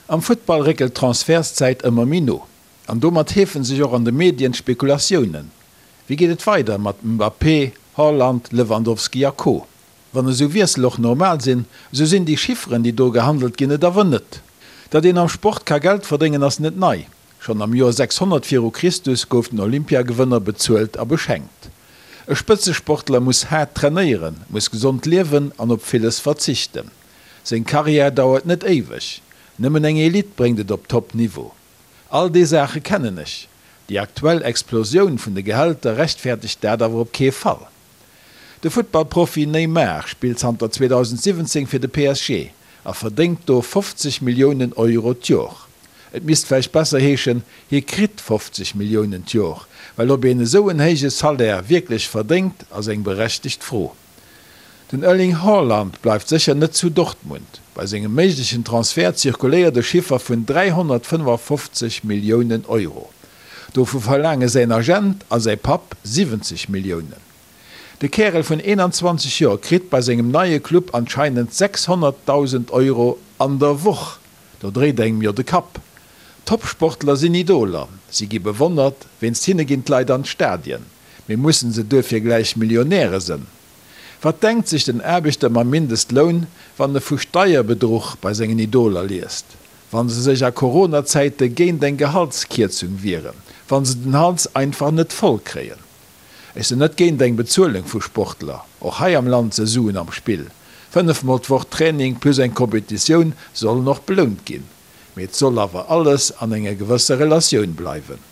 Am Futtball réckelt d'Transfertszäit ëmmer méi no. An domat heefen sech och an de Medien d'Spekulatiounen. Wéi geet et weider mat Mbappé, Haaland, Lewandowski a Co? Wann esou Wiessel och normal sinn, esou sinn déi Chifferen, déi do gehandelt ginn, et awer net. Datt een am Sport ka Geld verdéngen, ass net nei. Schonn am Joer 600 viru Christus gouf den Olympiagewënner bezuelt a beschenkt. E Spëtzesportler muss haart trainéieren, muss gesond liewen an op villes verzichten. Seng Karriär dauert net éiweg. Nëmmen eng Elite bréngt et op Top-Niveau. All déi Saache kennen ech. Déi aktuell Explosioun vun de Gehälter rechtfäertegt dat awer op kee Fall. De Futtballprofi Neymar spillt zanter 2017 fir de PSG a verdéngt do 50 Milliounen Euro d'Jor. Et misst vläicht besser heeschen, hie kritt 50 Milliounen d'Jor, well ob een esou en héije Salaire wierklech verdéngt, ass eng berechtegt Fro. Den Erling Haaland bleift sécher net zu Dortmund. Bei sengem méiglechen Transfert zirkuléiert e Chiffer vun 355 Milliounen Euro. Dovu verlaange säin Agent a säi Papp 70 Milliounen. De Kärel vun 21 Joer kritt bei sengem neie Club anscheinend 600.000 Euro an der Woch. Do dréit engem jo de Kapp. Topsportler sinn Idoler, si gi bewonnert, wéinst hinne ginn d'Leit an d'Stadien. Mee mussen se duerfir gläich Millionäre sënn? Wat denkt sech den Aarbechter mam Mindestloun, wann e vu Steierbedruch bei sengen Idoler liest? Wa se sech a Corona-Zäite géint eng Gehaltskierzung wieren? Wa se den Hals einfach net voll kréien? Ech sinn net géint eng Bezuelung vu Sportler. Och hei am Land se Suen am Spill. 5 mol d'Woch Training plus eng Competitioun sollen och belount ginn. Mee et soll awer alles an enger gewësser Relatioun bleiwen.